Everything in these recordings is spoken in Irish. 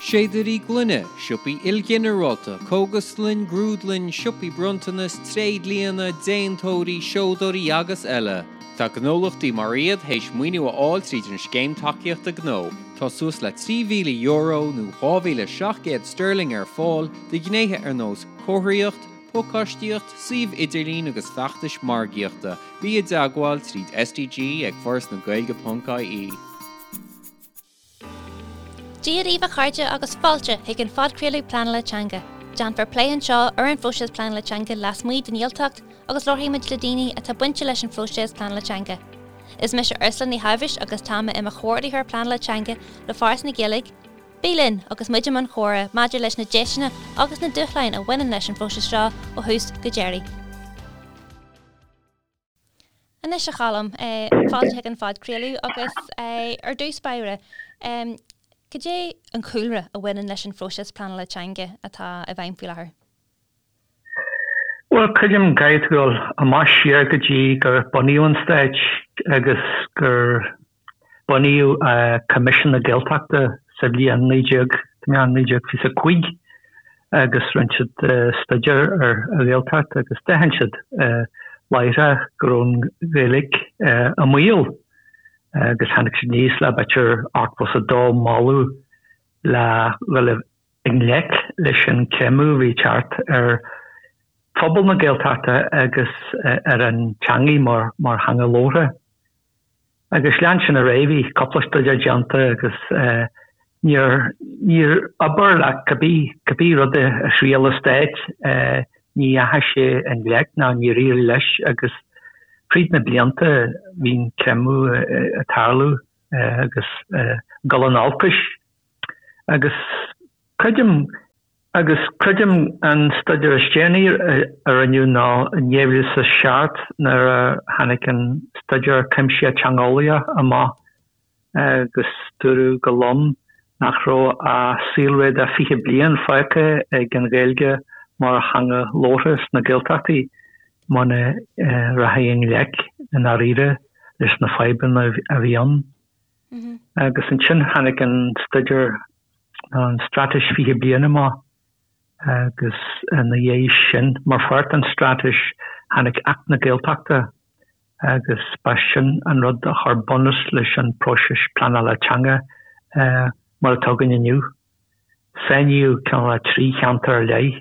Séadairí gloine, siopaí ilghinearálta, cógaslann, grúdlann, siopaí bronntanas, tréidlianna, déantóirí, seodóirí agus eile. Tá gnólachtaí mar iad théis maoiniú a fháil tríd an Scéim Tacaíochta Gnó. Tá suas le €3,000 nó 2,700 sterling ar fáil do ghnéithe ar nós comharthaíocht, pacáistíocht, suíomh idirlín agus feachtais margaíochta. Bí i dteagmháil tríd SDG ag forasnagaeilge.ie. Dia daoibh a chairde agus fáilte chuig an phodchraoladh Pleanála Teanga. Déanfar plé anseo ar an phróiseas pleanála teanga lasmuigh den Ghaeltacht agus labharfaidh muid le daoine atá bainte leis an phróiseas pleanála teanga. Is mise Ursula Ní Shábhais agus tá mé i mo chomhordaitheoir pleanála teanga le Foras na Gaeilge. Bí linn agus muid i mbun comhrá maidir leis na deiseanna agus na dúshláin a bhaineann leis an phróiseas seo ó thús go deireadh. Anois a Choilm, fáilte chuig an phodchraoladh agus ar dtús báire, cad é an cúlra a bhaineann leis an phróiseas pleanála teanga atá i bhfeidhm faoi láthair? Bhuel, creidim go gcaithfidh tú dul amach siar go dtí gur bunaíodh an Stát agus gur Bunaíodh Coimisiún na Gaeltachta sa bhliain 1925 agus rinne siad staidéar ar an Ghaeltacht agus d'aithin siad láithreach go raibh an Ghaeilge i mbaol agus tháinig siad aníos le b'fhéidir 82 moladh le dhul i ngleic leis an creimeadh a bhí ag teacht ar phobal na Gaeltachta agus ar an teangaidh mar theanga labhartha. Agus lean sin ar aghaidh, bhí cúpla staidéar déanta agus níor, níor oibir le cibé, cibé rud a thriail an Stát, ní dheachaigh sé i ngleic ná níor éirigh leis agus fríd na blianta bhí an creimeadh ag tarlú agus ag dul in olcais. Agus creidim Agus creidim an staidéar is déanaí a rinneadh ná in 2007 nuair a tháinig an staidéar cuimsitheach teangeolaíoch amach agus dúradh go lom nach raibh ach saolré de 20 bliain fágtha ag an Ghaeilge mar theanga labhartha sna Gaeltachtaí muna rachaí i ngleic i ndáiríre leis na fadhbanna a bhí ann. Agus ansin tháinig an staidéar an Straitéis 20 Bliain amach agus ina dhiaidh sin, mar pháirt den Straitéis, tháinig Acht na Gaeltachta agus ba sin an rud a chuir bunús leis an próiseas pleanála teanga mar atá againn inniu. Sainíodh cineál 3 cheantar ar leith.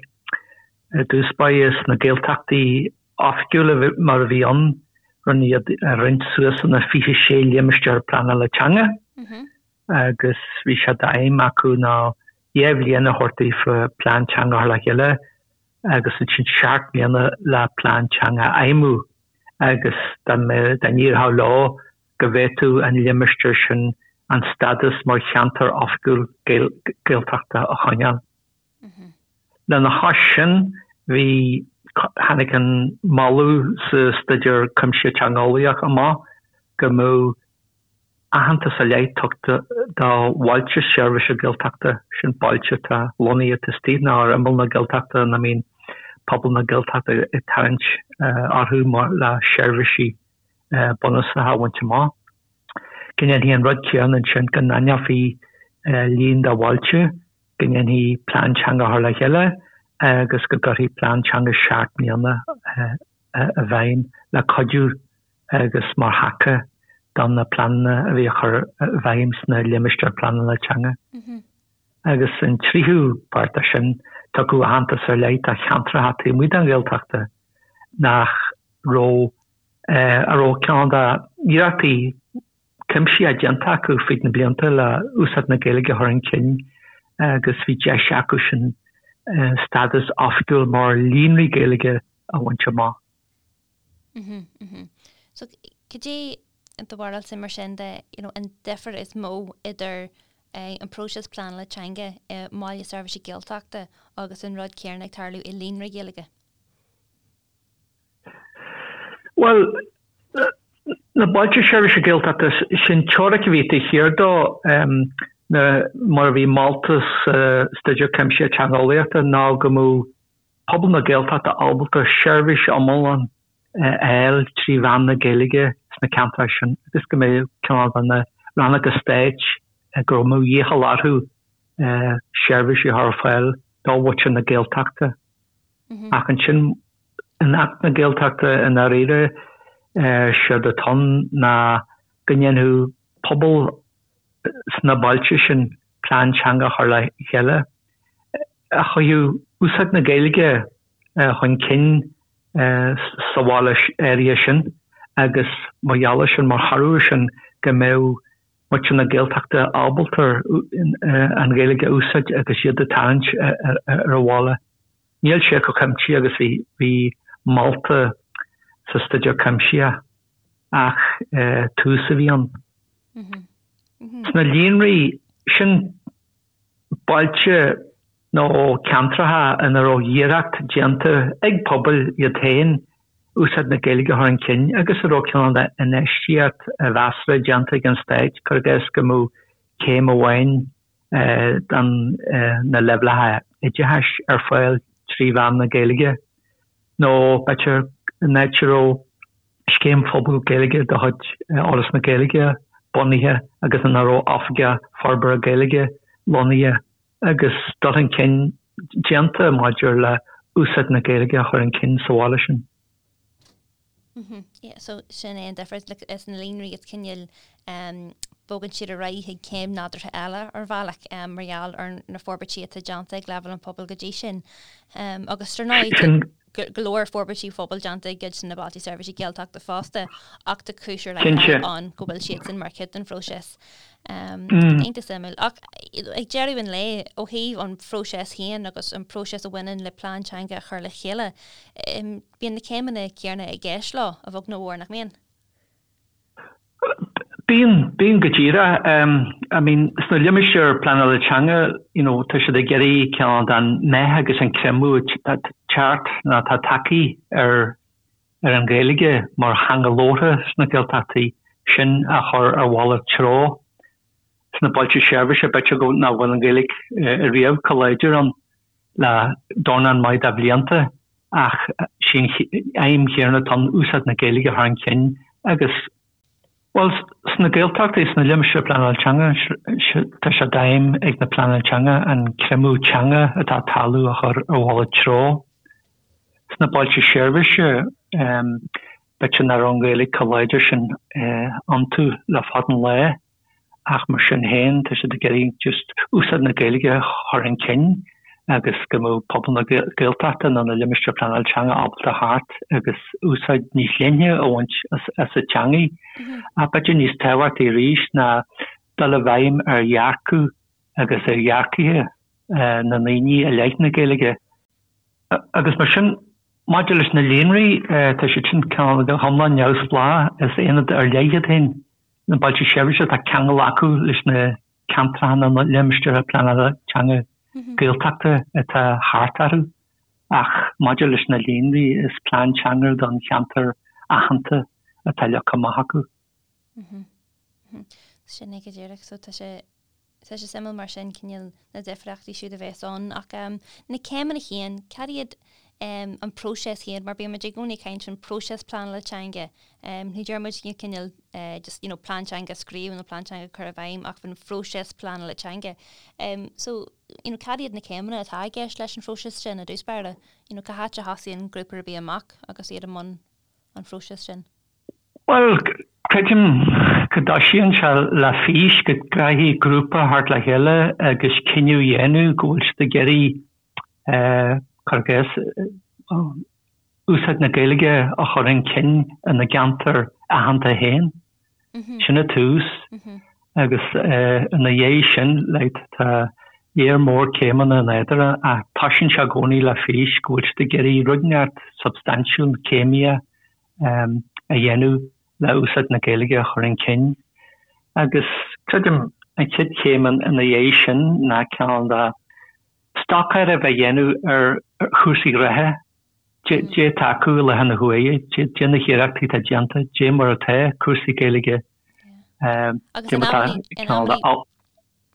I dtús báire sna Gaeltachtaí oifigiúla mar a bhí ann, rinneadh iad a roinnt suas ina 26 limistéar pleanála teanga. agus bhí sé d'aidhm acu ná 2 bhliain a thabhairt daofa plean teanga a chur le chéile agus ansin 7 mbliana le plean teanga a fheidhmiú agus dá n-éireodh leo go bhféadfadh an limistéar sin an stádas mar cheantar oifigiúil Gaeltachta a choinneáil. Lena chois sin bhí, tháinig an moladh sa Staidéar Cuimsitheach Teangeolaíoch amach go mbeadh aitheantas ar leith tugtha do bhailte seirbhíse Gaeltachta, sin bailte atá lonnaithe taobh istigh nó ar imeall na Gaeltachta ina mbíonn pobal na Gaeltachta ag tarraingt orthu mar le seirbhísí bunúsacha a bhaint amach. Go ndéanfaí an rud céanna ansin, go n-aithneofaí líon de bhailte, go ndéanfaí plean teanga a chur le chéile agus go gcuirfí plean teanga 7 mbliana i bhfeidhm le cuidiú agus mar thaca do na pleananna a bhí á chur i bhfeidhm sna limistéir pleanála teanga. Agus an tríú páirt de sin, tugadh aitheantas ar leith do cheantracha taobh amuigh den Ghaeltachta nach raibh, a raibh cineál d'iarrachtaí cuimsitheacha déanta acu fríd na blianta le úsáid na Gaeilge a chur chun cinn agus bhí deis acu sin stádas oifigiúil mar líonraí Gaeilge a bhaint amach. So, cad é do bharúilsa mar sin de, you know, an difear is mó idir an próiseas pleanála teanga i mBaile Seirbhíse Gaeltachta agus an rud céanna ag tarlú i líonra Gaeilge? Bhuel, na Bailte Seirbhíse Gaeltachta, sin teoiric a bhí taobh thiar dó, mar a bhí molta sa Staidéar Cuimsitheach Teangeolaíochta ná go mbeadh pobal na Gaeltachta ábalta seirbhís iomlán a fháil trí mheán na Gaeilge sna ceantair sin agus go mbeadh cineál de na rannóga stáit go mbeadh iachall orthu. seirbhísí a chur ar fáil do mhuintir na Gaeltachta. Ach ansin, in Acht na Gaeltachta i ndáiríre, séard atá ann ná go ndéanfadh pobal sna bailte sin plean teanga a chur le chéile a chuirfeadh úsáid na Gaeilge chun cinn sa bhaile áirithe sin agus mar gheall air sin, mar thoradh air sin, go mbeadh muintir na Gaeltachta ábalta an Ghaeilge a úsáid agus iad ag tarraingt ar an bhaile. Níl sé chomh cuimsitheach agus a bhí molta sa Staidéar Cuimsitheach ach tús a bhí ann. Sna líonraí, sin bailte nó ceantracha ina raibh iarracht déanta ag pobail iad féin úsáid na Gaeilge a chur chun cinn agus a raibh cineál de infheistíocht mheasartha déanta ag an Stát, cuir i gcás go mbeadh céim amháin de na leibhéalacha oideachais ar fáil trí mheán na Gaeilge nó b'fhéidir in áit a raibh scéim phobail Gaeilge de chuid Fhoras na Gaeilge bunaithe agus ina raibh Oifigeach Forbartha Gaeilge lonnaithe agus dul chun cinn déanta maidir le úsáid na Gaeilge a chur chun cinn sa bhaile sin. Yeah, so sin é an difear like, is na líonraí is cineál um, bogann siad ar aghaidh chuig céim nádúrtha eile ar bhealach um, mar gheall ar na forbairtí atá déanta ag leibhéal an phobail go dtí sin. Um, agus ar ndóigh go leor forbairtí phobail déanta i gcuid de na Bailte Seirbhíse Gaeltachta fosta ach tá cúis ar leith ann go bhfuil siad sin mar chuid den phróiseas. Iontach suimiúil. Ach ag deireadh an lae, ó thaobh an phróiseas féin agus an próiseas a bhaineann le plean teanga a chur le chéile, bíonn na céimeanna céanna i gceist leo, a bheag nó a mhór, nach mbíonn? Bíonn, bíonn go díreach. I mean, sna limistéir pleanála teanga, you know, tá siad ag iarraidh cineál den meath agus an creimeadh atá teacht nó atá tagtha ar ar an Ghaeilge mar theanga labhartha sna Gaeltachtaí sin a chur ar mhalairt treo. Sna bailte seirbhíse, b'fhéidir go nach bhfuil an Ghaeilge riamh chomh láidir ann le dornán maith de bhlianta ach sí an aidhm chéanna atá ann, úsáid na Gaeilge a chur chun cinn agus, bhuel, sna Gaeltachtaí, sna limistéir pleanála teanga, tá sé d'aidhm ag na pleananna teanga an creimeadh teanga atá ag tarlú a chur ar mhalairt treo. Sna bailte seirbhíse, b'fhéidir nach raibh an Ghaeilge chomh láidir sin iontu le fada an lá ach mar sin féin tá siad ag iarraidh just úsáid na Gaeilge a chur chun cinn agus go mbeadh pobal na Gaeltachta nó na limistéir pleanála teanga ábalta theacht agus úsáid níos leithne a bhaint as an teangaidh. Ach b'fhéidir níos tábhachtaí arís ná dul i bhfeidhm ar dhearcadh agus ar dhearcaithe na ndaoine i leith na Gaeilge. Agus mar sin, maidir leis na líonraí, tá siad sin cineál go hiomlán neamhspleách, is aonad ar leith iad féin. Na bailte seirbhíse, tá ceangal acu leis na ceantracha nó na limistéir pleanála teanga Gaeltachta atá thart orthu, ach maidir leis na líonraí, is plean teanga don cheantar aitheanta atá leagtha amach acu. Sin é go díreach. So tá sé Tá sé suimiúil mar sin cineál na difríochtaí siúd a bheas ann ach na céimeanna féin, cad iad an próiseas féin mar bíonn muid i gcónaí ag caint faoin próiseas pleanála teanga. Ní deir muid cineál just you know plean teanga a scríobh nó plean teanga a chur i bhfeidhm ach faoin phróiseas pleanála teanga. So you know cad iad na céimeanna atá i gceist leis an phróiseas sin i dtús báire? You know cá háit a thosaíonn grúpa ar bith amach agus iad i mbun an phróisis sin? Bhuel, creidim go dtoisíonn sé le fís, go gcaithfidh grúpa theacht le chéile agus cinneadh a dhéanamh go bhfuil siad ag iarraidh, cuir i gcás, úsáid na Gaeilge a chur chun cinn ina gceantar aitheanta féin. Sin an tús. Agus ina dhiaidh sin, like, tá léar mór céimeanna in eadarthu ach toisíonn sé i gcónaí le fís go bhfuil siad ag iarraidh rud inteacht substaintiúil, céimíoch, a dhéanamh le úsáid na Gaeilge a chur chun cinn. Agus creidim an chéad chéim ina dhiaidh sin ná cineál de stocáireamh a dhéanamh ar chúrsaí reatha, dé atá acu i láthair na huaire, dé na hiarrachtaí atá déanta, dé mar atá cúrsaí Gaeilge, dé mar atá cineál de.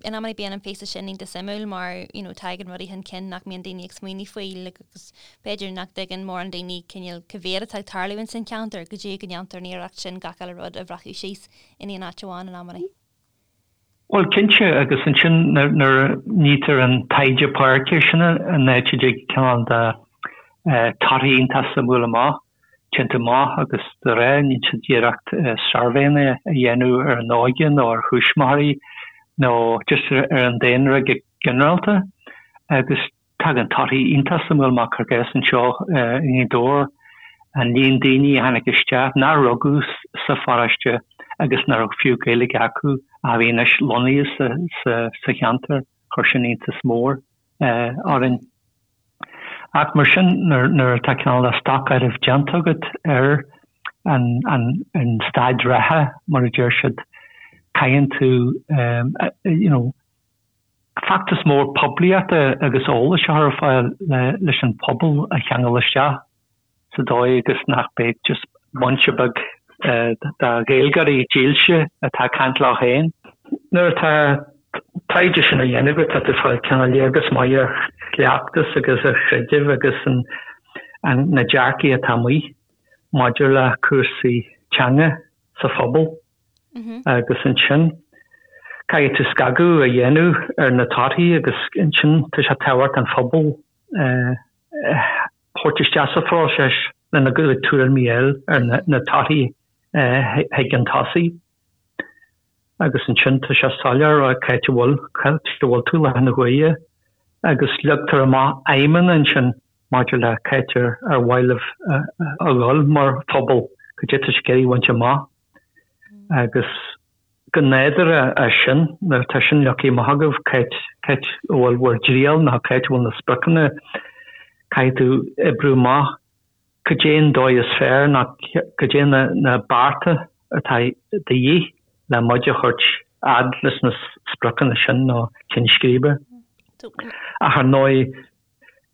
In amannaí bíonn an píosa sin iontach suimiúil mar you know tagann rudaí chun cinn nach mbíonn daoine ag smaoineamh faoi like agus b'fhéidir nach dtuigeann mórán daoine cineál cá mhéad atá ag tarlú ins an cheantar go dtí go ndéantar an iarracht sin gach uile rud a bhreacadh síos in aon áit amháin in amannaí. Bhuel, cinnte, agus ansin nuair a nítear an taighde páirce, sin an áit a dtig cineál de torthaí iontach suimiúil amach, déanta amach agus de réir, níonn siad iarracht suirbhéanna a dhéanamh ar an óige nó ar thuismitheoirí nó just ar an daonra go ginearálta agus Tagann torthaí iontach suimiúil amach cuir i gcás anseo i nGaoth Dobhair, an líon daoine a tháinig isteach nár rugadh sa pharóiste agus nach raibh fiú Gaeilge acu ach a bhí anois lonnaithe sa cheantar, chuir sin iontas mór orainn. Ach mar sin, nuair atá cineál de stocáireamh déanta agat ar an staid reatha, mar a deir siad, caitheann tú, you know, feachtas mór poiblíochta agus eolais a chur ar fáil leis an phobal a cheangal isteach sa dóigh agus nach mbeidh just bunch beag de Ghaeilgeoirí dílse atá ag caint leo féin. Nuair atá taighde sin á dhéanamh agat tá tú ag fáil cineál léargas maith ar chleachtas agus ar chreideamh agus na dearcaí atá amuigh maidir le cúrsaí teanga sa phobal. Agus ansin, caithfidh tú scagadh a dhéanamh ar na torthaí agus ansin tá sé tábhachtach an phobal a thabhairt isteach sa phróiseas lena gcuid tuairimí a fháil ar na torthaí chuig an tosaigh. Agus ansin tá sé soiléir cá háit a bhfuil, cá háit a bhfuil tú i láthair na huaire agus leagtar amach aidhmeanna ansin maidir le cá háit ar mhaith libh a dhul mar phobal, cad é atá sibh ag iarraidh a bhaint amach. Agus go nádúrtha as sin, nuair atá sin leagtha amach agaibh, cá háit a bhfuil bhur dtriall nó cá háit a bhfuil na spriocanna, caithfidh tú oibriú amach cad é an dóigh is fearr nó cad é na bearta atá de dhíth le muid a thabhairt fhad leis na spriocanna sin nó cinn scríbe. Ach ar ndóigh,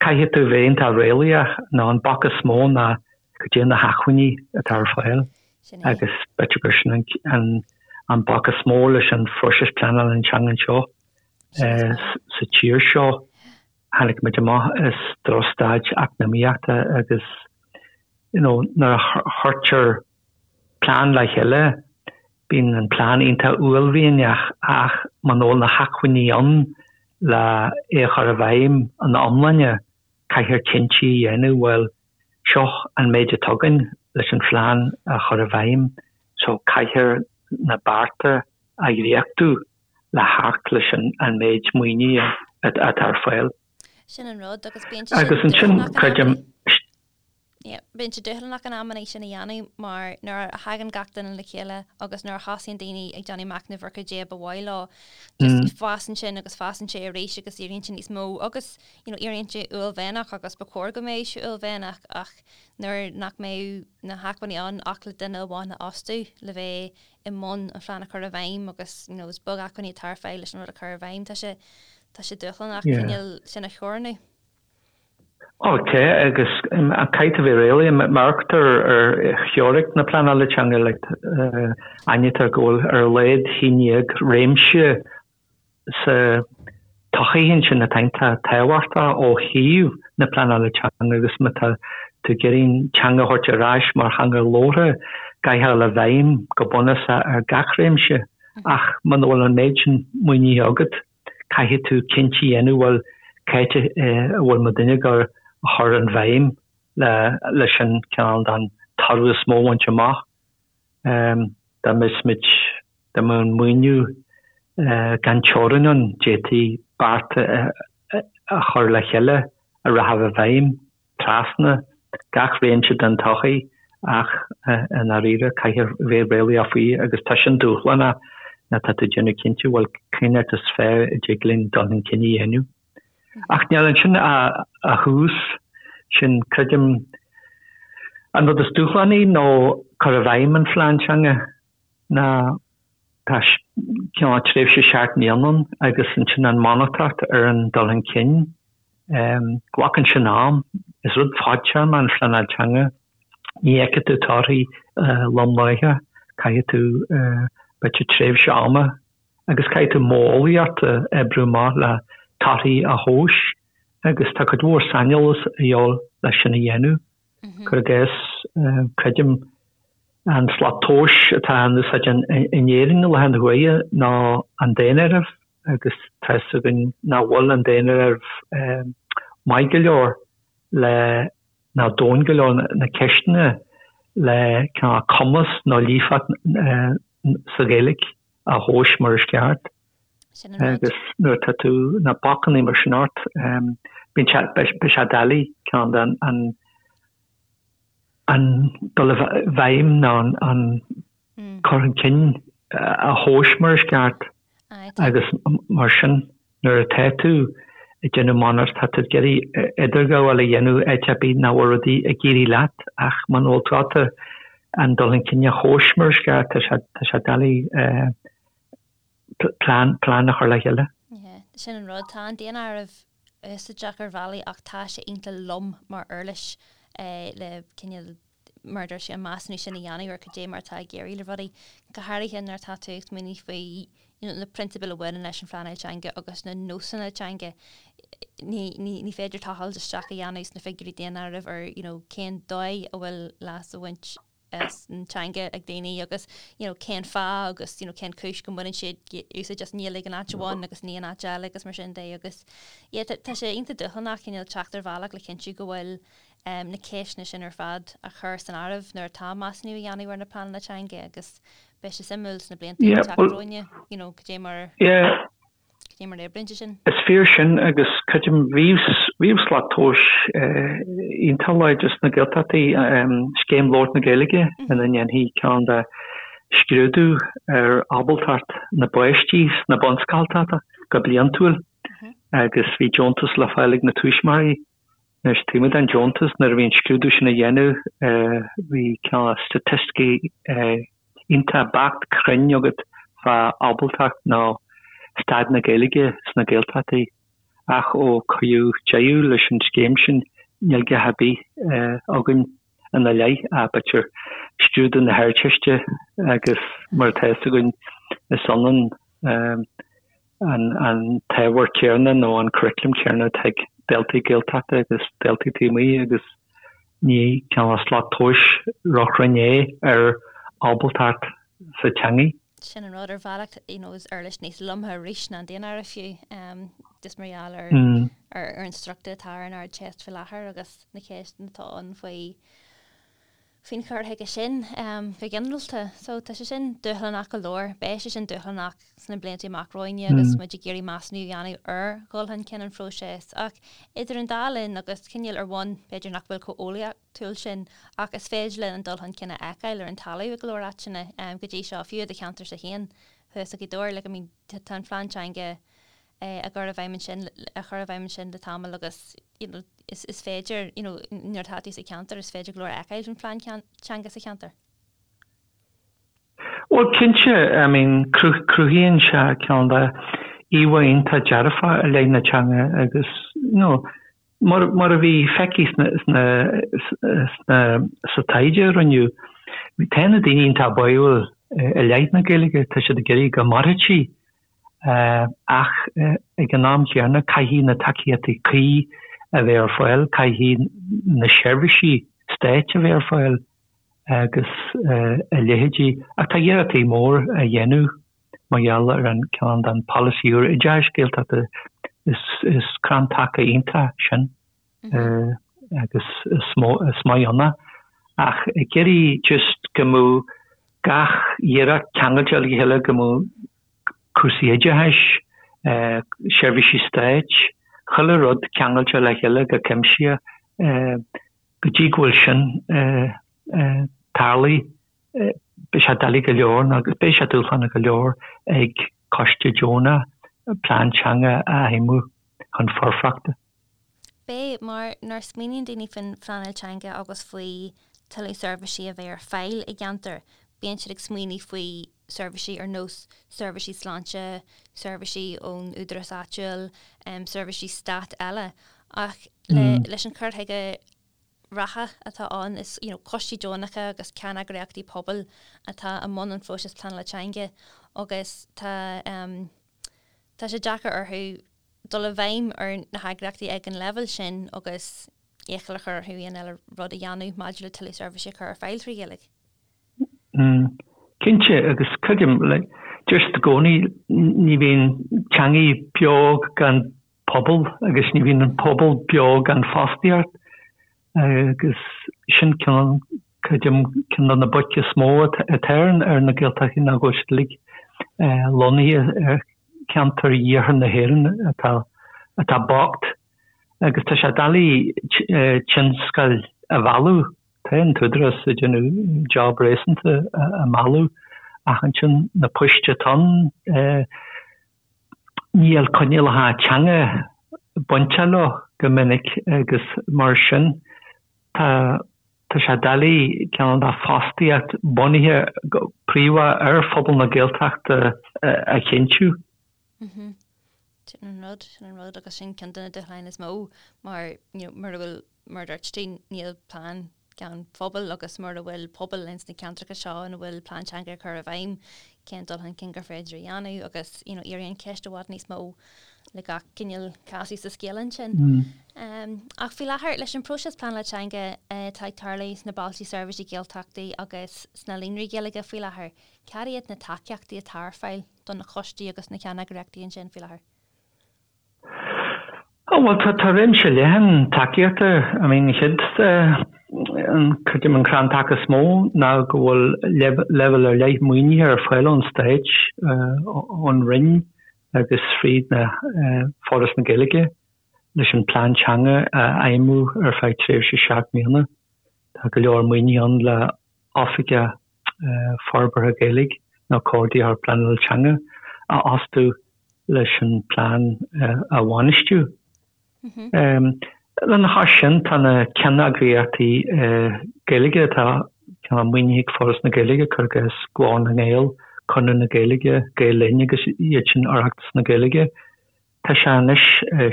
caithfidh tú bheith iontach réalaíoch nó an bac is mó ná cad é na hacmhainní atá ar fáil agus b'fhéidir gur sin an bac is mó leis an phróiseas pleanála teanga anseo sa tír seo. Tháinig muid amach as drochstaid eacnamaíochta agus you know nuair a chuirtear plean le chéile Bíonn an plean iontach uaillmhianach ach muna bhfuil na hacmhainní ann le é a chur i bhfeidhm ina iomláine, caithfear cinntí a dhéanamh, bhuel, seo an méid atá againn leis an phlean a chur i bhfeidhm so caithfear na bearta a dhréachtú le theacht leis an méid maoinithe atá ar fáil. Sin an rud agus bíonn sé sin Agus ansin, creidim. Yeah, bíonn sé dúshlánach in amanna sin a dhéanamh mar nuair a thagann gach duine le chéile agus nuair a thosaíonn daoine ag déanamh machnaimh ar cad é ba mhaith leo, just fásann sin agus fásann sé arís agus éiríonn sé níos mó agus you know, éiríonn sé uaillmhianach agus ba chóir go mbeadh sé uaillmhianach ach nuair nach mbeadh na hacmhainní ann ach le duine amháin a fhostú le bheith i mbun an phlean a chur i bhfeidhm agus you know, is beag acmhainní atá ar fáil leis an rud a chur i bhfeidhm, tá sé tá sé dúshlánach cineál sin a theorannú. Ok, agus caithfidh tú bheith réalaíoch, má amharctar ar theoiric na pleanála teanga, like, aithnítear go bhfuil ar a laghad 11 réimse sa tsochaí ansin atá iontach tábhachtach ó thaobh na pleanála teanga agus má tá tú ag iarraidh teanga a thabhairt ar ais mar theanga labhartha, caithfidh a dhul i bhfeidhm go bunúsach ar gach réimse ach muna bhfuil an méid sin maoinithe agat, caithfidh tú cinntí a dhéanamh, bhuel, cá háit a bhfuil muidinne ag gabháil a chur an bhéim leis an cineál den toradh is mó a bhaint amach. Dá mbeadh muid, dá mbeadh an maoiniú gan teorainn ann, d'fhéadfaí bearta a chur le chéile a rachadh i bhfeidhm. trasna gach réimse den tsochaí ach i ndáiríre caithfear bheith réalaíoch faoi agus tá sin dúshlánach nuair atá tú ag déanamh cinnte bhuel cén áit is fearr a dtig linn dul chun cinn a dhéanamh. Ach níl ansin ach tús, sin creidim an rud is dúshlánaí nó cur i bhfeidhm an phlean teanga ná tá cineál tréimhse 7 mbliana ann agus ansin an monatóireacht ar an dul chun cinn Glacann sin am. Is rud fadtéarma an phleanáil teanga. Ní fheicfidh tú torthaí lom láithreach. Caithfidh tú b'fhéidir tréimhse ama agus caithfidh tú modheolaíocht a oibriú amach le torthaí a thomhas agus tá cuid mhór saineolas a dhíobháil leis sin a dhéanamh. Cuir i gcás, creidim. An slat tomhais atá in úsáid in Éirinn i láthair na huaire ná an daonáireamh agus tá fhios againn nach bhfuil an daonáireamh maith go leor le ná domhain go leor na ceisteanna le cineál cumas nó líofacht sa Ghaeilge a thomhas mar is ceart. Agus nuair atá tú na bacanna mar sin ort bíonn sé beidh sé doiligh ceann den an an dul i bhfeidhm nó an cur chun cinn a thomhas mar is ceart agus mar sin nuair atá tú ag déanamh monatóireacht tá tú ag iarraidh idirghabháil a dhéanamh áit ar bith nach bhfuil rudaí ag éirí leat ach muna bhfuil tú ábalta an dul chun cinn a thomhas mar is ceart tá sé tá sé doiligh plean plean a chur le chéile. Sin an rud, tá an daonáireamh úsáideach ar bhealaí ach tá sé iontach lom mar uirlis le cineál mar a dúirt sé an measúnú sin a dhéanamh ar cad é mar atá ag éirí le rudaí, go háirithe nuair atá tú ag smaoineamh faoi you know na prionsabail a bhaineann leis an phleanáil teanga agus na nósanna teanga. Ní, ní, ní féidir tochailt isteach a dhéanamh sna figiúirí daonáirimh ar you know cén dóigh a bhfuil leas á bhaint as an teanga ag daoine agus you know cén fáth agus you know cén chúis go mbaineann siad úsáid as an nGaeilge in áit amháin agus ní in áit eile agus mar sin de agus yeah tá tá sé iontach dúshlánach cineál teacht ar bhealach le cinntiú go bhfuil um, na ceisteanna sin ar fad á chur san áireamh nuair atá measúnú á dhéanamh ar na pleananna teanga agus beidh sé suimiúil sna blianta Yeah, ag teacht well, romhainne you know cad é mar yeah, Cad é mar a oibríonn sé sin? Is fíor sin agus creidim bhíodh slat tomhais iontach láidir sna Gaeltachtaí, Scéim Labhairt na Gaeilge ina ndéanfaí cineál de scrúdú ar ábaltacht na bpáistí sna bunscoltacha go bliantúil agus bhí deontas le fáil ag na tuismitheoirí. Anois, taobh amuigh den deontas, nuair a bhí an scrúdú sin á dhéanamh, bhí cineál staitisticí iontach beacht cruinn agat fá ábaltacht nó staid na Gaeilge sna Gaeltachtaí. Ach ó cuireadh deireadh leis an scéim sin, níl a dhath ar bith againn ina leith ach b'fhéidir scrúdú na hArdteiste agus mar atá fhios againn, is ionann an t-ábhar céanna nó an curriculum céanna atá ag daltaí Gaeltachta agus daltaí taobh amuigh agus ní cineál slat tomhais róchruinn é ar ábaltacht sa teangaidh. Sin an rud, ar bhealach, you know, is uirlis níos lomtha arís ná an daonáireamh fiú, just mar gheall ar ar an struchtúr atá ar an Ardteist faoi láthair agus na ceisteanna atá ann faoi faoin chur chuige sin go ginearálta. So tá sé sin dúshlánach go leor. Beidh sé sin dúshlánach sna blianta amach romhainne agus muid ag iarraidh measúnú a dhéanamh ar dhul chun cinn an phróisis. Ach idir an dá linn agus cineál ar bhonn b'fhéidir nach bhfuil chomh eolaíochtúil sin ach is féidir linn an dul chun cinn a fheiceáil ar an talamh i go leor áiteanna go dtí seo, fiú i do cheantarsa féin thuas i Gaoth Dobhair. Like I mean tá an phlean teanga á chur i bhfeidhm ansin, á chur i bhfeidhm ansin le tamall agus you know is is féidir you know nuair atá tú sa cheantar is féidir go leor a fheiceáil faoin phlean teanga sa cheantar. Bhuel cinnte, I mean cruthaíonn sé cineál de íomhá iontach dearfach i leith na teanga agus you know mar mar a bhí feicthe sna sna sna sa taighde a rinneadh, tá na daoine iontach báúil i leith na Gaeilge, tá siad ag iarraidh go mairfidh sí Ach ag an am chéanna, caithfidh na tacaíochtaí cuí a bheith ar fáil, caithfidh na seirbhísí stáit a bheith ar fáil agus a leithéidí. Ach tá iarrachtaí mór á dhéanamh mar gheall ar an ceann den pholasaí úr oideachais Gaeltachta. Is crann taca iontach sin agus is maith ann é. Ach ag iarraidh just go mbeadh gach iarracht ceangailte le chéile, go mbeadh cúrsaí oideachais, seirbhísí stáit, chuile rud ceangailte le chéile go cuimsitheach. Go dtí go bhfuil sin tarlaithe, beidh sé doiligh go leor nó beidh sé dúshlánach go leor ag coiste deonach plean teanga a fheidhmiú chun foirfeachta. Beidh, mar nuair a smaoiníonn daoine faoin phleanáil teanga agus faoi tuilleadh seirbhísí a bheith ar fáil i gceantar, bíonn siad ag smaoineamh faoi seirbhísí ar nós seirbhísí sláinte, seirbhísí ón údarás áitiúil, seirbhísí stáit eile. Ach leis an chur chuige reatha atá ann, is you know coistí deonacha agus ceanneagraíochtaí pobail atá i mbun an phróisis pleanála teanga agus tá tá sé deacair orthu dul i bhfeidhm ar na heagraíochtaí ag an leibhéal sin agus iachall a chur orthu aon eile rud a dhéanamh maidir le tuilleadh seirbhísí a chur ar fáil trí Ghaeilge. Cinnte, agus creidim, like, deir siad i gcónaí, ní bhíonn teangaí beo gan pobal agus ní bhíonn an pobal beo gan fostaíocht agus sin cineál, creidim, ceann de na baic is mó atá ar na Gaeltachtaí ná go bhfuil siad uilig lonnaithe ar cheantair iarthar na hÉireann atá atá bocht agus tá sé doiligh tionscail a mhealladh. Tá an tÚdarás ag déanamh job réasúnta a mealladh ach ansin na poist atá ann, Níl coinníollacha teanga bainteach leo go minic agus mar sin tá tá sé doiligh cineál de fostaíocht bunaithe go príomha ar phobal na Gaeltachta a chinntiú. Sin an rud, sin an rud agus sin ceann de na dúshláin is mó mar you know mura bhfuil mar a dúirt tú níl plean gan phobal agus mura bhfuil pobal ins na ceantracha seo ina bhfuil plean teanga á chur i bhfeidhm, cén dul chun cinn gur féidir a dhéanamh agus you know éiríonn an cheist i bhfad níos mó le gach cineál casadh sa scéal ansin. Um, ach faoi láthair leis an próiseas pleanála teanga atá ag tarlú sna bailte seirbhísí Gaeltachtaí agus sna líonraí Gaeilge faoi láthair, cad iad na tacaíochtaí atá ar fáil do na coistí agus na ceanneagraíochtaí ansin faoi láthair? Ó bhuel tá tá réimse leathan tacaíochta, I mean an chéad an creidim an crann taca is mó ná go bhfuil leibhéal ar leith maoinithe ar fáil ón Stát, ón Roinn agus fríd na Foras na Gaeilge leis an plean teanga a fheidhmiú ar feadh tréimhse 7 mbliana. Tá go leor maoinithe ann le Oifigeach Forbartha Gaeilge nó Comhordaitheoir Pleanála Teanga a fhostú leis an bplean a bhainistiú. Lena chois sin, tá na ceanneagraíochtaí Gaeilge atá maoinithe ag Foras na Gaeilge, cuir i gcás Glór na nGael, Conradh na Gaeilge, Gael Linn agus iad sin Oireachtas na Gaeilge. Tá sé anois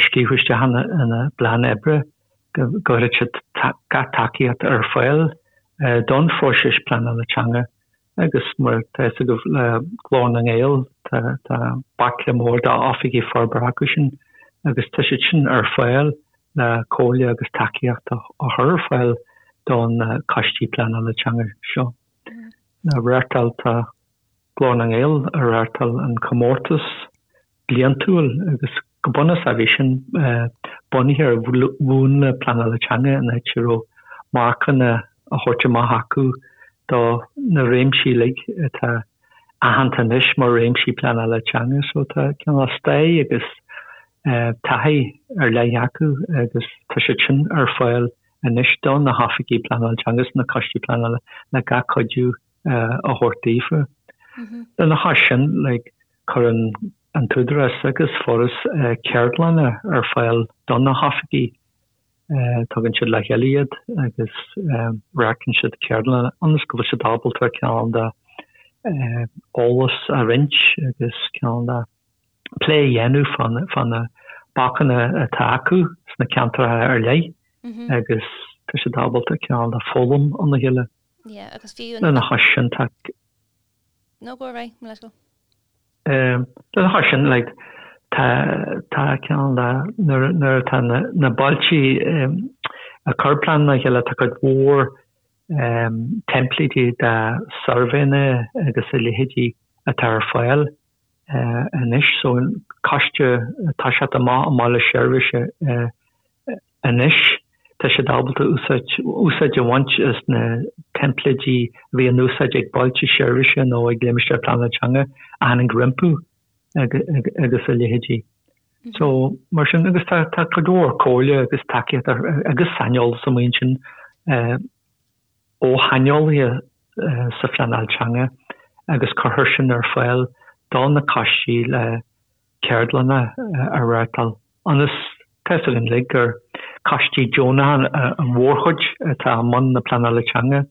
scríofa isteach ina bplean oibre go gcuirfidh siad gach tacaíocht ar fáil don phróiseas pleanála teanga agus mar tá fhios agaibh le Glór na nGael tá baicle mór d'oifigigh forbartha acu sin agus tá siad sin ar fáil le comhairle agus tacaíocht a chur ar fáil don coistí pleanála teanga seo. Reáchtáil tá Glór na nGael a reáchtáil an comórtas bliantúil agus go bunúsach bhí sin bunaithe ar mhúnla pleanála teanga in áit a raibh marcanna á thabhairt amach acu do na réimsí uilig atá aitheanta anois mar réimsí pleanála teanga. So tá cineál stair agus taithí ar leith acu agus tá siad sin ar fáil anois do na hoifigigh pleanála teanga is na coistí pleanála le gach cuidiú a thabhairt daofa. Lena chois sin, like, cuireann an tÚdarás agus Foras ceardlanna ar fáil do na hoifigigh. Tugann siad le chéile iad agus reáchtálann siad ceardlanna ionas go bhfuil siad ábalta cineál de eolas a roinnt agus cineál de plé a dhéanamh fá na bacanna atá acu sna ceantracha ar leith agus tá siad ábalta cineál de foghlaim óna chéile. Yeah, agus fiú an. Lena chois sin tá. No, go ar aghaidh, mo leithscéal. Lena chois sin, like, tá, tá cineál de, nuair, nuair atá na, na bailte ag cur pleananna le chéile, tá cuid mhór teimpléidí de suirbhéanna agus a leithéidí atá ar fáil anois. So, coiste atá ag teacht amach i mbaile seirbhíse Anois tá siad ábalta úsáid úsáid a bhaint as na teimpléidí a bhí in úsáid ag bailte seirbhíse nó ag limistéir pleanála teanga a tháinig rompu agus a leithéidí. So, mar sin, agus tá tá cuid mhór comhairle agus tacaíocht agus saineolas amuigh ansin ó shaineolaithe sa phleanáil teanga agus cuirtear sin ar fáil do na coistí le ceardlanna a reáchtáil ionas, tá fhios againn uilig gur coistí deonacha an mhórchuid atá i mbun na pleanála teanga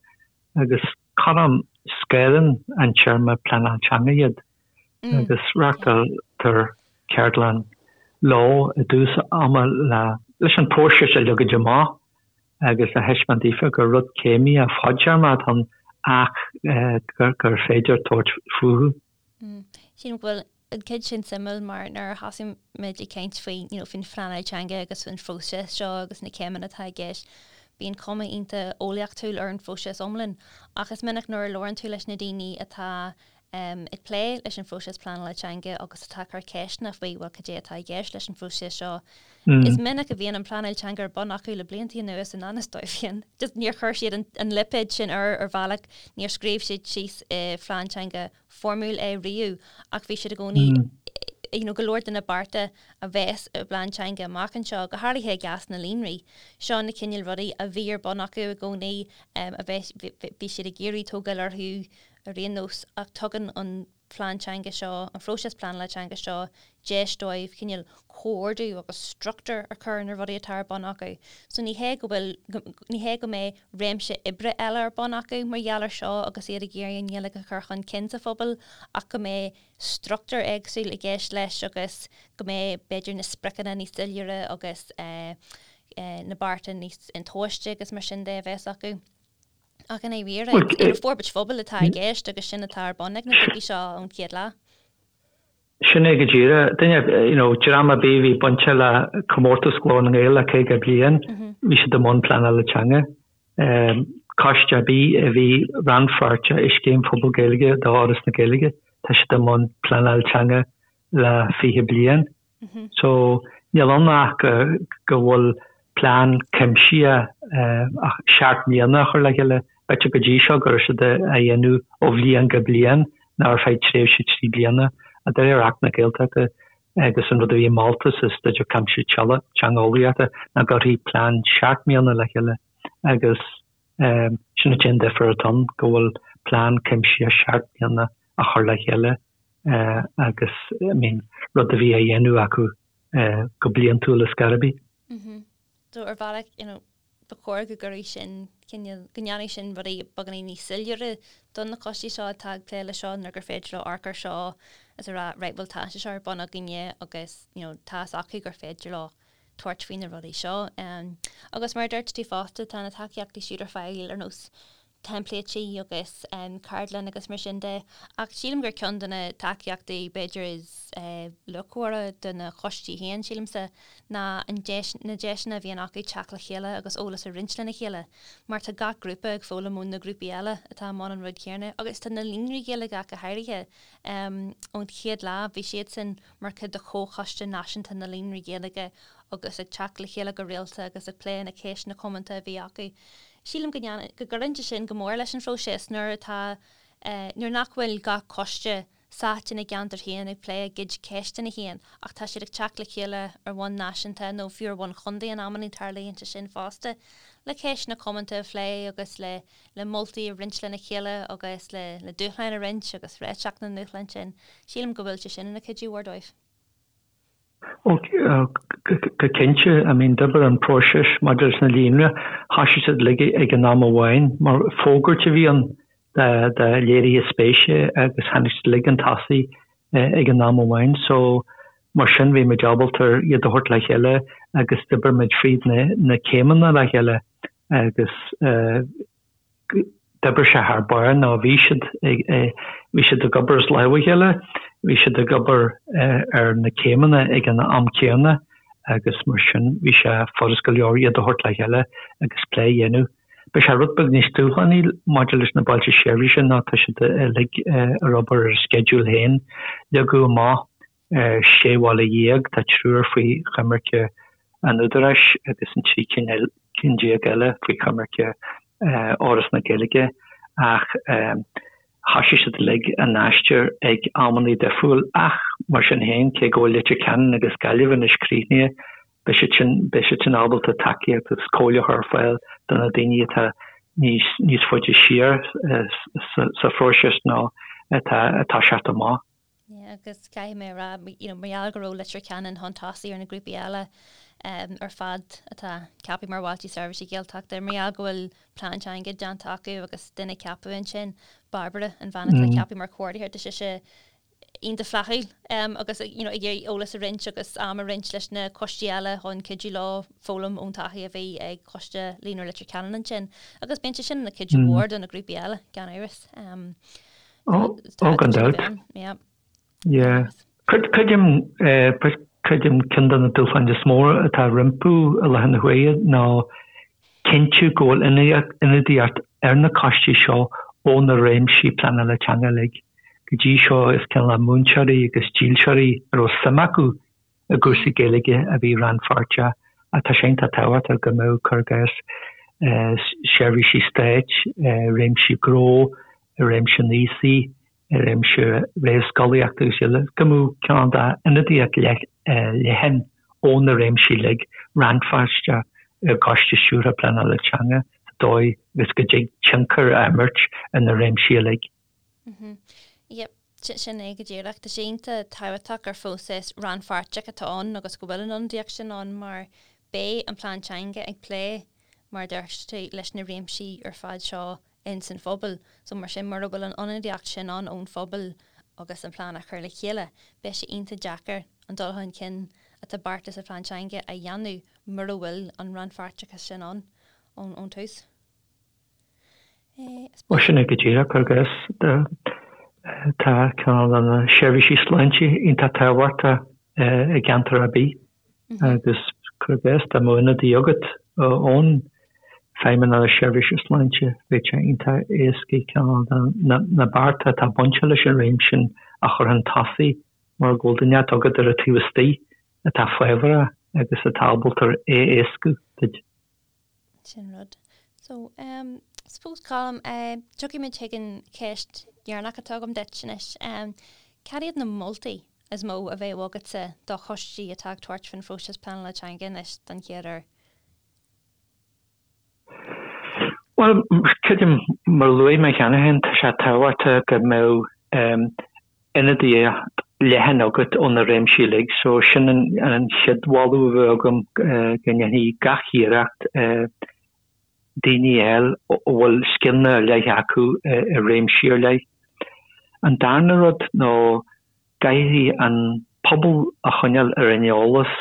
agus corruair scanraíonn an téarma pleanáil teanga iad agus reáchtáiltear ceardlann leo i dtús ama leis an próiseas a leagaint amach agus a thaispeáint daofa gur rud céimnithe fadtéarmach atá ann ach gur féidir tabhairt fúthu. Sílim go bhfuil an chuid sin suimiúil mar nuair a thosaigh muid ag caint faoi you know faoin phleanáil teanga agus faoin phróiseas seo agus na céimeanna atá i gceist. Bíonn cuma iontach eolaíochtúil ar an phróiseas iomlán ach is minic nuair a labhrann tú leis na daoine atá ag plé leis an phróiseas pleanála teanga agus atá ag cur ceisteanna faoi bhuel cad é atá i gceist leis an phróiseas seo, is minic a bhíonn an pleanáil teanga ar bun acu le blianta anuas i ngan fhios dóibh féin. Just níor chuir siad an lipéad sin air ar bhealach, níor scríobh siad síos i phlean teanga foirmiúil é riamh ach bhí siad i gcónaí you know go leor de na bearta a bheas i bplean teanga amach anseo, go háirithe i gcás na líonraí. Seo na cineál rudaí a bhí ar bun acu i gcónaí, a bheas, bhí siad ag iarraidh tógáil orthu ar aon nós ach tugann an plean teanga seo, an phróiseas pleanála teanga seo deis dóibh cineál comhordú agus struchtúr a chur ar na rudaí atá ar bun acu. So ní hé go bhfuil, ní hé go mbeidh réimse oibre eile ar bun acu mar gheall ar seo agus iad ag iarraidh an Ghaeilge a chur chun cinn sa phobal ach go mbeidh struchtúr éagsúil i gceist leis agus go mbeidh b'fhéidir na spriocanna níos soiléire agus na bearta níos intomhaiste agus mar sin de a bheas acu. Ach i ndáiríre, forbairt phobail atá i gceist agus sin atá ar bun ag na grúpaí seo ón chéad lá. Sin é go díreach. Duine, you know, dream ar bith a bhí bainte le comórtas Ghlór na nGael le 50 bliain, bhí siad i mbun pleanála teanga. Coiste ar bith a bhí rannpháirteach i Scéim Phobal Gaeilge d'Fhoras na Gaeilge, tá siad i mbun pleanáil teanga le 20 bliain. So, níl ann ach go bhfuil plean cuimsitheach seacht mbliana a chur le chéile. B'fhéidir go dtí seo go raibh siad á dhéanamh ó bhliain go bliain nó ar feadh tréimhse 3 bliana. De réir Acht na Gaeltachta agus an rud a bhí molta sa Staidéar Cuimsitheach Teangeolaíochta ná go gcuirfí plean seacht mbliana le chéile agus sin an t-aon difear atá ann, go bhfuil plean cuimsitheach seacht mbliana á chur le chéile agus I mean rud a bhí á dhéanamh acu go bliantúil ar scor ar bith. So ar bhealach you know ba chóir go gcuirfeadh sin cineál, go ndéanfadh sin rudaí beagáinín níos soiléire do na coistí seo atá ag plé leis seo nuair gur féidir leo amharc ar seo is a rá right bhuel tá sé seo ar bun againne agus you know tá fhios acu gur féidir leo tabhairt faoi na rudaí seo. Agus mar a dúirt tú fosta tá na tacaíochtaí siúd ar fáil ar nós teimpléití agus ceardlann agus mar sin de. Ach sílim gur ceann de na tacaíochtaí b'fhéidir is luachmhaire do na coistí féin, sílimse, ná an deis, na deiseanna a bhíonn acu teacht le chéile agus eolas a roinnt lena chéile. Mar tá gach grúpa ag foghlaim ó na grúpaí eile atá i mbun an rud céanna. Agus tá na líonraí Gaeilge ach go háirithe. Ón chéad lá bhí siadsan mar chuid de Chomhchoiste Náisiúnta na Líonraí Gaeilge agus ag teacht le chéile go rialta agus ag plé na ceisteanna comónta a bhí acu. Sílim go ndéanann, go gcuireann sé sin go mór leis an phróiseas nuair atá, nuair nach bhfuil gach coiste sáite ina gceantar féin ag plé a gcuid ceisteanna féin ach tá siad ag teacht le chéile ar bhonn náisiúnta nó fiú ar bhonn chontae in amannaí tarlaíonn sé sin fosta le ceisteanna comónta a phlé agus le le moltaí a roinnt lena chéile agus le le dúshláin a roinnt agus réiteach na ndúshlán sin. Sílim go bhfuil sé sin ina chuidiú mhór dóibh. Ó, go cinnte. I mean, d'oibir an próiseas maidir leis na líonraí, thoisigh siad uilig ag an am amháin, mar fógairt a bhí ann do léirithe spéise agus tháinig siad uilig chun tosaigh ag an am amháin. So, mar sin bhí muid ábalta iad a thabhairt le chéile agus d'oibir muid fríd na céimeanna le chéile agus D'oibrigh sé thar barr nó bhí siad ag, bhí siad ag obair as lámh a chéile, bhí siad ag obair ar na céimeanna ag an am céanna agus mar sin bhí sé furast go leor iad a thabhairt le chéile agus plé a dhéanamh. Beidh sé rud beag níos dúshlánaí maidir leis na bailte seirbhíse nó tá siad uilig ar obair ar a sceideal féin. Leagadh amach 16 bhaile, tá triúr faoi choimirce an Údaráis agus an 13 cinn eile faoi choimirce Fhoras na Gaeilge ach thoisigh siad uilig a n-aistear ag amannaí difriúil ach mar sin féin, cé go bhfuil Leitir Ceanainn agus Gaillimh anois críochnaithe, beidh siad sin, beidh siad sin ábalta tacaíocht agus comhairle a chur ar fáil do na daoine atá níos, níos faide siar sa phróiseas nó atá ag toiseacht amach. Yeah, agus caithfidh mé a rá, you know, mar gheall go raibh Leitir Ceanainn chun tosaigh ar na grúpaí eile um, ar fad atá ceaptha mar Bhailte Seirbhíse Gaeltachta, mar gheall go bhfuil plean teanga déanta acu agus duine ceaptha ansin, Barbara, an bhean atá mm. ceaptha mar chomhordaitheoir, tá sise iontach flaithiúil um, agus you know, ag iarraidh eolas a roinnt agus am a roinnt leis na coistí eile chun cuidiú leo foghlaim ón taithí a bhí ag coiste Líonra Leitir Ceanainn ansin. Agus bíonn sé sin ina cuidiú mm. mhór do na grúpaí eile, gan amhras. Um, Ó, gan dabht. Yeah. Creidim, creidim ceann de na dúshláin is mó atá rompu i láthair na huaire ná Cinntiú go bhfuil ionadaíocht ar na coistí seo ó na réimsí pleanála teanga uilig. Go dtí seo is cineál de múinteoirí agus dílseoirí a raibh suim acu i gcúrsaí Gaeilge a bhí rannpháirteach ach tá sé iontach tábhachtach go mbeadh, cuir i gcás, seirbhísí stáit, réimsí gnó, réimse an aosaigh, i réimse réamhscolaíochta agus eile, go mbeadh cineál d'ionadaíocht leathan ó na réimsí uilig rannpháirteach i gCoiste Stiúrtha Pleanála Teanga sa dóigh agus go dtig tionchar a imirt ar na réimsí uilig. Yep, sin é go díreach. Tá sé iontach tábhachtach gur phróiseas rannpháirteach atá ann agus go bhfuil an ionadaíocht sin ann mar beidh an plean teanga ag plé, mar a dúirt tú, leis na réimsí ar fad seo ins an phobal. So mar sin, mura bhfuil an ionadaíocht sin ann ón phobal agus an plean á chur le chéile, beidh sé iontach deacair an dul chun cinn atá beartaithe sa phlean teanga a dhéanamh mura bhfuil an rannpháirteachas sin ann ón tús. Bhuel, sin é go díreach agus tá cineál de na seirbhísí sláinte iontach tábhachtach i gceantar ar bith. Agus cuir i gcás dá mbeadh ionadaí agat ón Feidhmeannacht Seirbhíse Sláinte, bheadh sé iontach éasca cineál de na bearta atá bainte leis an réimse sin a chur chun tosaigh mar go bhfuil duine agat ar an taobh istigh atá fábharach agus atá ábalta é a éascú duit. Sin rud. So, um, suppose Colm, eh, tiocfaidh muid chuig an cheist dheireanach atá agam duit anois. Um, cad iad na moltaí is mó a bheadh agatsa do choistí atá ag tabhairt faoin phróiseas pleanála teanga anois don chéad uair? Bhuel, creidim, mar a luaigh mé cheana féin, tá sé tábhachtach go mbeadh um, ionadaíocht leathan agat ó na réimsí uilig. So sin an chéad mholadh a bheadh agam, go ndéanfaí gach iarracht daoine a fháil a bhfuil scileanna ar leith acu i réimsí ar leith. An darna rud ná caithfidh an pobal a choinneáil ar an eolas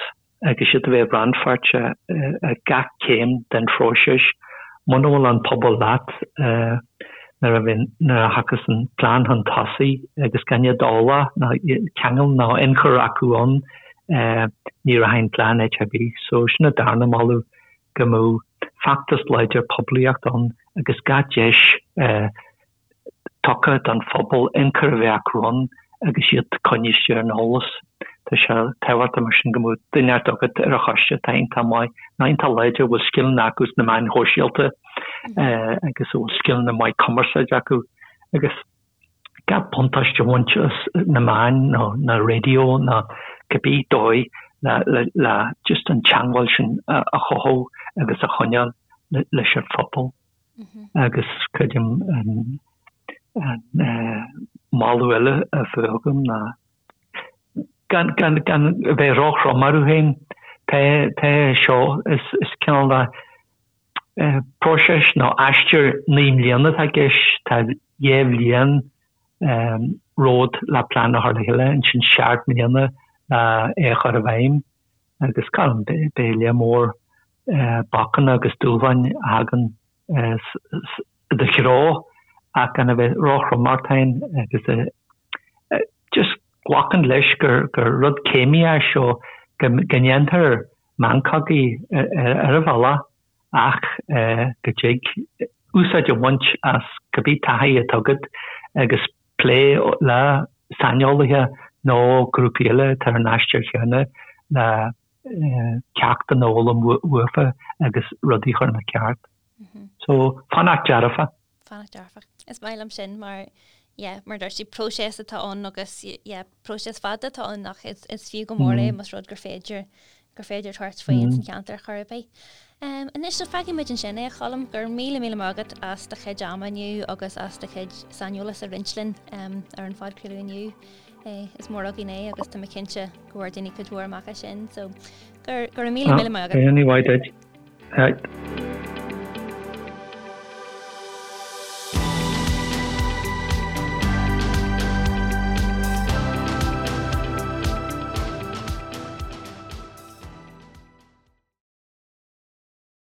agus iad a bheith rannpháirteach ag gach céim den phróiseas. Muna bhfuil an pobal leat nuair a bhíonn, nuair a thiocfas an plean chun tosaigh agus gan iad eolach ná ceangal ná ionchur acu ann, ní rachaidh an plean áit ar bith. So sin an darna moladh, go mbeadh feachtas láidir poiblíochta ann agus gach deis tugtha don phobal ionchur a bheith acu ann agus iad coinnithe ar an eolas. Tá sé tábhachtach mar sin go mbeadh duine inteacht agat ar an choiste atá iontach maith nó iontach láidir, a bhfuil scileanna acu sna meáin shóisialta agus a bhfuil scileanna maith cumarsáide acu agus gach buntáiste a bhaint as na meáin nó na raidió nó cibé dóigh le just an teagmháil sin a chothú agus a choinneáil leis an phobal. Agus creidim an moladh eile a bheadh agam ná gan gan a bheith róthrom orthu féin. Tá tá seo is is cineál de próiseas nó aistear 9 mbliana atá i gceist. Tá 2 bhliain romhat le plean a chur le chéile, ansin 7 mbliana le é a chur i bhfeidhm. Agus gan beidh lear mór bacanna agus dúshláin a thagann i do threo ach gan a bheith róthrom ort féin agus just glacadh leis gur rud céimí é seo, go ndéantar meancogaí ar an bhealach ach go dtig úsáid a bhaint as cibé taithí atá agat agus plé le saineolaithe nó grúpaí eile atá ar an aistear chéanna le ceachtanna a fhoghlaim uafa agus rudaí a chur ina ceart. So, fanacht dearfach. Fanacht dearfach. Is maith liom sin mar, yeah, mar dúirt tú, próiseas atá ann agus, yeah, próiseas fada atá ann ach is, is fiú go mór é más rud gur féidir, gur féidir tabhairt faoi ins an cheantar chor ar bith. Um, anois so fágfaidh muid ansin é a Choilm, go raibh míle míle maith agat as do chuid ama inniu agus as do chuid saineolas a roinnt linn um, ar an phodchraoladh inniu. Eh, is mór againn é agus tá mé cinnte go bhfuair daoine cuid mhór amach as sin, so go, go raibh míle míle maith agat. Ní mhaith duit.